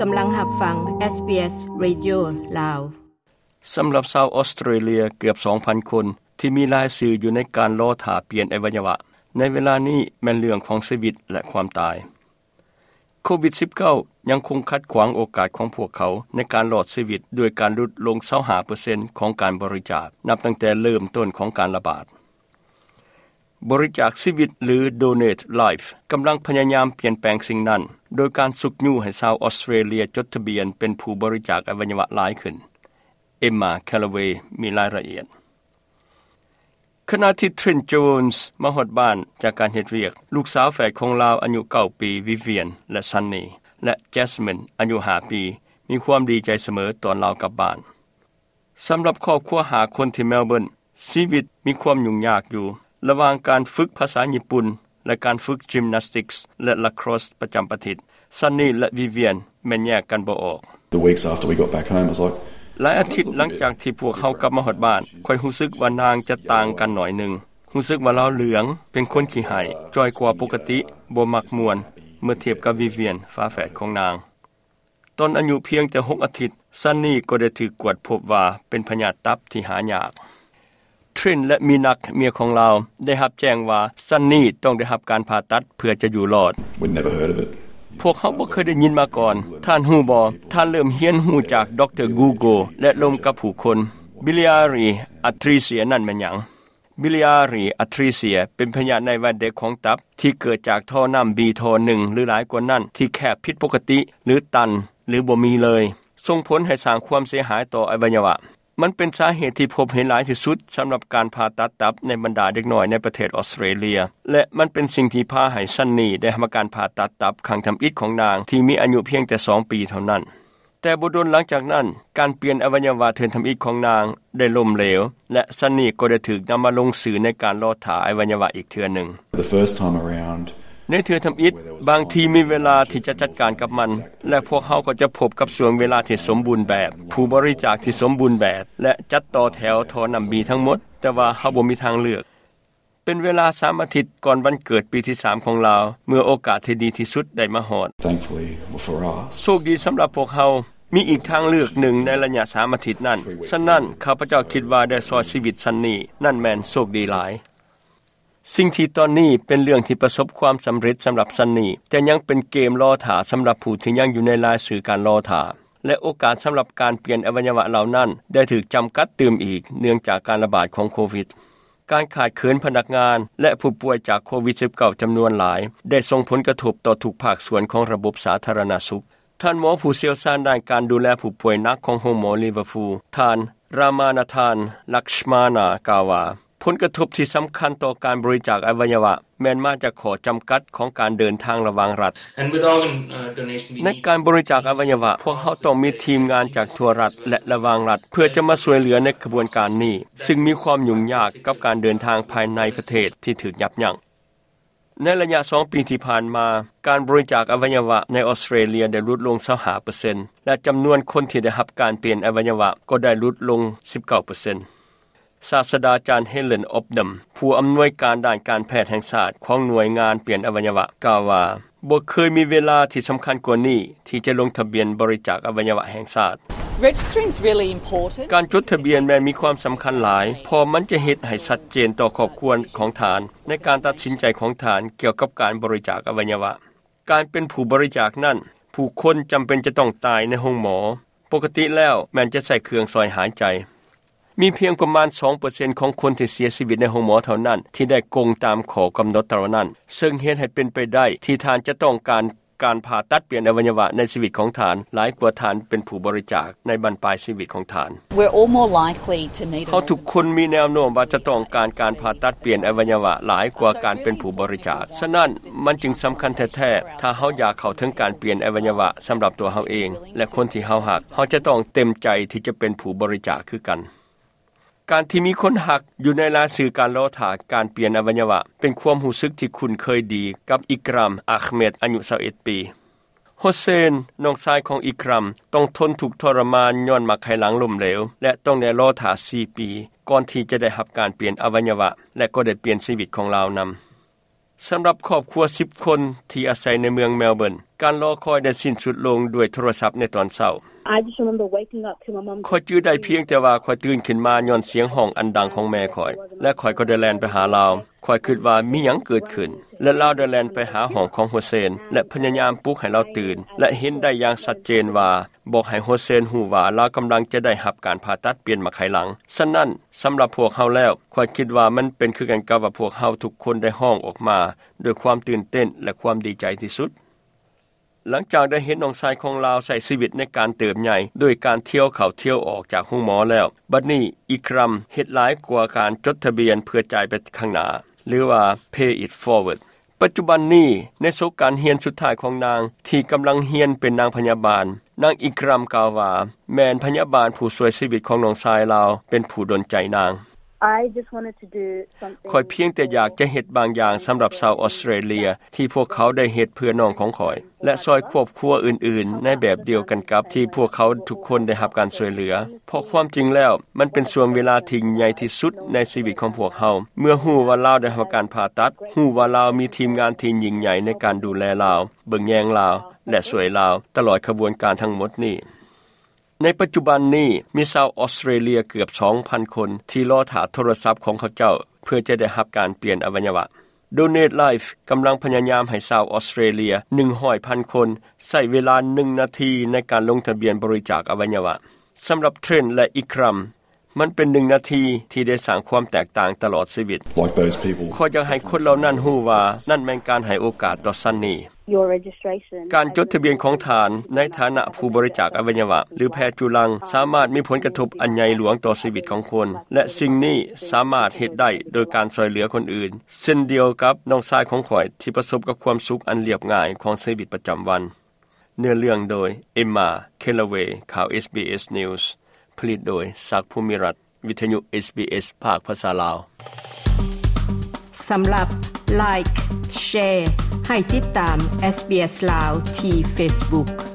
ກຳລັງຮັບຟັງ ເອສບີເອສ ເຣດິໂອ ລາວ. ສຳລັບຊາວອອສເຕຣເລຍເກືອບສອງພັນຄົນ ທີ່ມີລາຍຊື່ຢູ່ໃນການລໍຖ້າປ່ຽນອະໄວຍະວະ ໃນເວລານີ້ແມ່ນເລື່ອງຂອງຊີວິດ ແລະ ຄວາມຕາຍ. ໂຄວິດສິບເກົ້າ ຍັງຄົງຂັດຂວາງໂອກາດຂອງພວກເຂົາໃນການລອດຊີວິດ ດ້ວຍການຫຼຸດລົງຊາວຫ້າເປີເຊັນຂອງການບໍລິຈາກ ນັບຕັ້ງແຕ່ເລີ່ມຕົ້ນຂອງການລະບາດ. ບໍລິຈາກຊີວິດ ຫຼື Donate Life ກຳລັງພະຍາຍາມປ່ຽນແປງສິ່ງນັ້ນ ໂດຍການຊຸກຍູ້ໃຫ້ຊາວອອສເຕຣເລຍຈົດທະບຽນເປັນຜູ້ບໍລິຈາກອະໄວຍະວະຫຼາຍຂຶ້ນ. Emma Callaway ມີລາຍລະອຽດ. ຂະນະທີ່ Trent Jones ມາຮອດບ້ານຈາກການເຮັດວຽກ, ລູກສາວແຝດຂອງລາວອາຍຸເກົ້າປີ Vivian ແລະ Sunny ແລະ Jasmine ອາຍຸຫ້າປີ ມີຄວາມດີໃຈສະເໝີຕອນລາວກັບບ້ານ. ສຳລັບຄອບຄົວຫ້າຄົນທີ່ Melbourne ຊີວິດມີຄວາມຫຍຸ້ງຍາກຢູ່ ລະຫວ່າງການຝຶກພາສາຍີ່ປຸ່ນ ແລະ ການຝຶກ gymnastics ແລະ lacrosse ປະຈຳອາທິດ. Sunny ແລະ Vivian ແມ່ນແຍກກັນບໍ່ອອກ. The weeks after we got back home, I was like, ຫຼາຍອາທິດຫຼັງຈາກທີ່ພວກເຮົາກັບມາຮອດບ້ານ, ຂ້ອຍຮູ້ສຶກວ່ານາງຈະຕ່າງກັນໜ້ອຍໜຶ່ງ. ຮູ້ສຶກວ່າລາວເຫຼືອງ, ເປັນຄົນຂີ້ໄຫ້, ຈ່ອຍກວ່າປົກກະຕິ, ບໍ່ມັກມ່ວນ ເມື່ອທຽບກັບ Vivian ຝາແຝດຂອງນາງ. ຕອນອາຍຸພຽງແຕ່ຫົກອາທິດ, Sunny ກໍໄດ້ຖືກກວດພົບວ່າເປັນພະຍາດຕັບທີ່ຫາຍາກ. Trent ແລະ Minak ເມຍຂອງລາວ ໄດ້ຮັບແຈ້ງວ່າ Sunny ຕ້ອງໄດ້ຮັບການຜ່າຕັດເພື່ອຈະຢູ່ລອດ. We'd never heard of it. ພວກເຮົາບໍ່ເຄີຍໄດ້ຍິນມາກ່ອນ. ທ່ານຮູ້ບໍ່? ທ່ານເລີ່ມຮຽນຮູ້ຈາກ Dr Google ແລະ ລົມກັບຜູ້ຄົນ. Biliary atresia ນັ້ນແມ່ນຫຍັງ? Biliary atresia ເປັນພະຍາດໃນວັດເດັກຂອງຕັບ ທີ່ເກີດຈາກທໍ່ນ້ຳບີທໍ່ໜຶ່ງ ຫຼື ຫຼາຍກວ່ານັ້ນ ທີ່ແຄບຜິດປົກກະຕິ ຫຼື ຕັນ ຫຼື ບໍ່ມີເລີຍ, ສົ່ງຜົນໃຫ້ສ້າງຄວາມເສຍຫາຍຕໍ່ອະໄວຍະວະ. ມັນເປັນສາເຫດທີ່ພົບເຫັນຫຼາຍທີ່ສຸດສຳລັບການຜ່າຕັດຕັບໃນບັນດາເດັກນ້ອຍໃນປະເທດອອສເຕຣເລຍ ແລະ ມັນເປັນສິ່ງທີ່ພາໃຫ້ Sunny ໄດ້ຮັບການຜ່າຕັດຕັບຄັ້ງທຳອິດຂອງນາງ ທີ່ມີອາຍຸພຽງແຕ່ສອງປີເທົ່ານັ້ນ. ແຕ່ບໍ່ດົນຫຼັງຈາກນັ້ນ, ການປ່ຽນອະໄວຍະວະເທື່ອທຳອິດຂອງນາງໄດ້ລົ້ມເຫຼວ ແລະ Sunny ກໍໄດ້ຖືກນຳມາລົງຊື່ໃນການລໍຖ້າອະໄວຍະວະອີກເທື່ອໜຶ່ງ. The first time around, ໃນເທື່ອທຳອິດ, ບາງທີມີເວລາທີ່ຈະຈັດການກັບມັນ ແລະ ພວກເຮົາກໍຈະພົບກັບຊ່ວງເວລາທີ່ສົມບູນແບບ, ຜູ້ບໍລິຈາກທີ່ສົມບູນແບບ ແລະ ຈັດຕໍ່ແຖວທໍ່ນ້ຳບີທັງໝົດ, ແຕ່ວ່າເຮົາບໍ່ມີທາງເລືອກ. ເປັນເວລາສາມອາທິດກ່ອນວັນເກີດປີທີສາມຂອງລາວ, ເມື່ອໂອກາດທີ່ດີທີ່ສຸດໄດ້ມາຮອດ. Thankfully for us, ໂຊກດີສຳລັບພວກເຮົາ, ມີອີກທາງເລືອກໜຶ່ງໃນໄລຍະສາມອາທິດນັ້ນ. ສະນັ້ນ, ຂ້າພະເຈົ້າຄິດວ່າໄດ້ຊ່ອຍຊີວິດ Sunny. ນັ້ນແມ່ນໂຊກດີຫຼາຍ. ສິ່ງທີ່ຕອນນີ້ເປັນເລື່ອງທີ່ປະສົບຄວາມສຳເລັດສຳລັບ Sunny, ແຕ່ຍັງເປັນເກມລໍຖ້າສຳລັບຜູ້ທີ່ຍັງຢູ່ໃນລາຍຊື່ການລໍຖ້າ. ແລະ ໂອກາດສຳລັບການປ່ຽນອະໄວຍະວະເຫຼົ່ານັ້ນໄດ້ຖືກຈຳກັດຕື່ມອີກ ເນື່ອງຈາກການລະບາດຂອງໂຄວິດ. ການຂາດເຂີນພະນັກງານ ແລະ ຜູ້ປ່ວຍຈາກໂຄວິດສິບເກົ້າ ຈຳນວນຫຼາຍ ໄດ້ສົ່ງຜົນກະທົບຕໍ່ທຸກພາກສ່ວນຂອງລະບົບສາທາລະນະສຸກ. ທ່ານໝໍຜູ້ຊ່ຽວຊານດ້ານການດູແລຜູ້ປ່ວຍໜັກຂອງໂຮງໝໍ Liverpool, ທ່ານ Ramanathan Lakshmana ກ່າວວ່າ, ຜົນກະທົບທີ່ສຳຄັນຕໍ່ການບໍລິຈາກອະໄວຍະວະແມ່ນມາຈາກຂໍ້ຈຳກັດຂອງການເດີນທາງລະຫວ່າງລັດ. And with organ, uh, donation, we ໃນການບໍລິຈາກອະໄວຍະວະ, ພວກເຮົາຕ້ອງມີທີມງານຈາກທົ່ວລັດ ແລະ ລະຫວ່າງລັດ ເພື່ອຈະມາຊ່ວຍເຫຼືອໃນຂະບວນການນີ້, ຊຶ່ງມີຄວາມຫຍຸ້ງຍາກກັບການເດີນທາງພາຍໃນປະເທດທີ່ຖືກຍັບຢັ້ງ. ໃນໄລຍະສອງປີທີ່ຜ່ານມາ, ການບໍລິຈາກອະໄວຍະວະໃນອອສເຕຣເລຍໄດ້ຫຼຸດລົງຊາວຫ້າເປີເຊັນ ແລະ ຈຳນວນຄົນທີ່ໄດ້ຮັບການປ່ຽນອະໄວຍະວະກໍໄດ້ຫຼຸດລົງສິບເກົ້າເປີເຊັນ. ສາດສະດາຈານ Helen Opdam, ຜູ້ອຳນວຍການດ້ານການແພດແຫ່ງຊາດຂອງໜ່ວຍງານປ່ຽນອະໄວຍະວະ, ກ່າວວ່າ, ບໍ່ເຄີຍມີເວລາທີ່ສຳຄັນກວ່ານີ້ທີ່ຈະລົງທະບຽນບໍລິຈາກອະໄວຍະວະແຫ່ງຊາດ. Registering's really important. ການຈົດທະບຽນແມ່ນມີຄວາມສຳຄັນຫຼາຍ, ເພາະມັນຈະເຮັດໃຫ້ຊັດເຈນຕໍ່ຄອບຄົວຂອງທ່ານໃນການຕັດສິນໃຈຂອງທ່ານກ່ຽວກັບການບໍລິຈາກອະໄວຍະວະ. ການເປັນຜູ້ບໍລິຈາກນັ້ນ, ຜູ້ຄົນຈຳເປັນຈະຕ້ອງຕາຍໃນໂຮງໝໍ. ປົກກະຕິແລ້ວແມ່ນຈະໃຊ້ເຄື່ອງຊ່ອຍຫາຍໃຈ. ມີພຽງປະມານສອງເປີເຊັນຂອງຄົນທີ່ເສຍຊີວິດໃນໂຮງໝໍເທົ່ານັ້ນທີ່ໄດ້ກົງຕາມຂໍ້ກຳນົດເຫຼົ່ານັ້ນ, ເຊິ່ງເຮັດໃຫ້ເປັນໄປໄດ້ທີ່ທ່ານຈະຕ້ອງການການຜ່າຕັດປ່ຽນອະໄວຍະວະໃນຊີວິດຂອງທ່ານ ຫຼາຍກວ່າທ່ານເປັນຜູ້ບໍລິຈາກໃນບັ້ນປາຍຊີວິດຂອງທ່ານ. We're all more likely to need a ເຮົາທຸກຄົນມີແນວໂນ້ມວ່າຈະຕ້ອງການການຜ່າຕັດປ່ຽນອະໄວຍະວະຫຼາຍກວ່າການເປັນຜູ້ບໍລິຈາກ. ສະນັ້ນ, ມັນຈຶ່ງສຳຄັນແທ້ໆ ຖ້າເຮົາຢາກເຂົ້າເຖິງການປ່ຽນອະໄວຍະວະສຳລັບຕົວເຮົາເອງ ແລະ ຄົນທີ່ເຮົາຮັກ, ເຮົາຈະຕ້ອງເຕັມໃຈທີ່ຈະເປັນຜູ້ບໍລິຈາກຄືກັນ. ການທີ່ມີຄົນຮັກຢູ່ໃນລາຍຊື່ການລໍຖ້າການປ່ຽນອະໄວຍະວະ ເປັນຄວາມຮູ້ສຶກທີ່ຄຸ້ນເຄີຍດີກັບ Ikram Ahmed ອາຍຸຊາວເອັດປີ. ໂຮເຊນ, ນ້ອງຊາຍຂອງ Ikram, ຕ້ອງທົນທຸກທໍລະມານຍ້ອນໝາກໄຂ່ຫຼັງລົ້ມເຫຼວ ແລະ ຕ້ອງໄດ້ລໍຖ້າສີ່ປີ ກ່ອນທີ່ຈະໄດ້ຮັບການປ່ຽນອະໄວຍະວະ ແລະ ກໍໄດ້ປ່ຽນຊີວິດຂອງລາວນຳ. ສຳລັບຄອບຄົວສິບຄົນທີ່ອາໄສໃນເມືອງ Melbourne, ການລໍຄອຍໄດ້ສິ້ນສຸດລົງດ້ວຍໂທລະສັບໃນຕອນເຊົ້າ. I just remember waking up to my mum. ຂ້ອຍຈື່ໄດ້ພຽງແຕ່ວ່າຂ້ອຍຕື່ນຂຶ້ນມາຍ້ອນສຽງຮ້ອງອັນດັງຂອງແມ່ຂ້ອຍ ແລະ ຂ້ອຍກໍໄດ້ແລ່ນໄປຫາລາວ. ຂ້ອຍຄິດວ່າມີຫຍັງເກີດຂຶ້ນ ແລະ ລາວໄດ້ແລ່ນໄປຫາຫ້ອງຂອງໂຮເຊນ ແລະ ພະຍາຍາມປຸກໃຫ້ລາວຕື່ນ ແລະ ເຫັນໄດ້ຢ່າງຊັດເຈນວ່າ ບອກໃຫ້ໂຮເຊນຮູ້ວ່າລາວກຳລັງຈະໄດ້ຮັບການຜ່າຕັດປ່ຽນໝາກໄຂ່ຫຼັງ. ສະນັ້ນ, ສຳລັບພວກເຮົາແລ້ວ, ຂ້ອຍຄິດວ່າມັນເປັນຄືກັນກັບວ່າພວກເຮົາທຸກຄົນໄດ້ຮ້ອງອອກມາດ້ວຍຄວາມຕື່ນເຕັ້ນ ແລະ ຄວາມດີໃຈທີ່ສຸດ. ຫຼັງຈາກໄດ້ເຫັນນ້ອງຊາຍຂອງລາວໃຊ້ຊີວິດໃນການເຕີບໃຫຍ່ໂດຍການທ່ຽວເຂົ້າທ່ຽວອອກຈາກໂຮງໝໍແລ້ວ, ບັດນີ້ ອີກຣຳ ເຮັດຫຼາຍກວ່າການຈົດທະບຽນເພື່ອຈ່າຍໄປຂ້າງໜ້າ ຫຼືວ່າ Pay It Forward. ປັດຈຸບັນນີ້, ໃນສົກການຮຽນສຸດທ້າຍຂອງນາງທີ່ກຳລັງຮຽນເປັນນາງພະຍາບານ, ນາງ ອີກຣຳ ກ່າວວ່າ ແມ່ນພະຍາບານຜູ້ຊ່ວຍຊີວິດຂອງນ້ອງຊາຍລາວເປັນຜູ້ດົນໃຈນາງ. I just wanted to do something. ຂ້ອຍພຽງແຕ່ຢາກຈະເຮັດບາງຢ່າງສຳລັບຊາວອອສເຕຣເລຍທີ່ພວກເຂົາໄດ້ເຮັດເພື່ອນ້ອງຂອງຂ້ອຍ ແລະ ຊ່ອຍຄອບຄົວອື່ນໆໃນແບບດຽວກັນກັບທີ່ພວກເຂົາທຸກຄົນໄດ້ຮັບການຊ່ວຍເຫຼືອ. ເພາະຄວາມຈິງແລ້ວ, ມັນເປັນຊ່ວງເວລາທີ່ໃຫຍ່ທີ່ສຸດໃນຊີວິດຂອງພວກເຮົາ ເມື່ອຮູ້ວ່າລາວໄດ້ຮັບການຜ່າຕັດ, ຮູ້ວ່າລາວມີທີມງານທີ່ຍິ່ງໃຫຍ່ໃນການດູແລລາວ, ເບິ່ງແຍງລາວ ແລະ ຊ່ວຍລາວຕະຫຼອດຂະບວນການທັງໝົດນີ້. ໃນປັດຈຸບັນນີ້ ມີຊາວອອສເຕຣເລຍເກືອບສອງພັນຄົນທີ່ລໍຖ້າໂທລະສັບຂອງເຂົາເຈົ້າເພື່ອຈະໄດ້ຮັບການປ່ຽນອະໄວຍະວະ. Donate Life ກຳລັງພະຍາຍາມໃຫ້ຊາວອອສເຕຣເລຍໜຶ່ງຮ້ອຍພັນຄົນໃຊ້ເວລາໜຶ່ງນາທີໃນການລົງທະບຽນບໍລິຈາກອະໄວຍະວະ. ສຳລັບ Trent ແລະ Ikram, ມັນເປັນໜຶ່ງນາທີທີ່ໄດ້ສ້າງຄວາມແຕກຕ່າງຕະຫຼອດຊີວິດ. Like those people. ຂ້ອຍຢາກໃຫ້ຄົນເຫຼົ່ານັ້ນຮູ້ວ່ານັ້ນແມ່ນການໃຫ້ໂອກາດຕໍ່ Sunny. Your registration. ການຈົດທະບຽນຂອງທ່ານໃນຖານະຜູ້ບໍລິຈາກອະໄວຍະວະ ຫຼື ແພດຈຸລັງ ສາມາດມີຜົນກະທົບອັນໃຫຍ່ຫຼວງຕໍ່ຊີວິດຂອງຄົນ ແລະ ສິ່ງນີ້ສາມາດເຮັດໄດ້ໂດຍການຊ່ອຍເຫຼືອຄົນອື່ນ, ເຊັ່ນດຽວກັບນ້ອງຊາຍຂອງຂ້ອຍທີ່ປະສົບກັບຄວາມສຸກອັນລຽບງ່າຍຂອງຊີວິດປະຈຳວັນ. ເນື້ອເລື່ອງໂດຍ Emma Callaway. ຂ່າວ SBS News ຜະລິດໂດຍ ສັກ ພູມິລັດ. ວິທະຍຸ SBS ພາກພາສາລາວ. ສຳລັບ Like, Share ໃຫ້ຕິດຕາມ SBS ລາວທີ່ Facebook.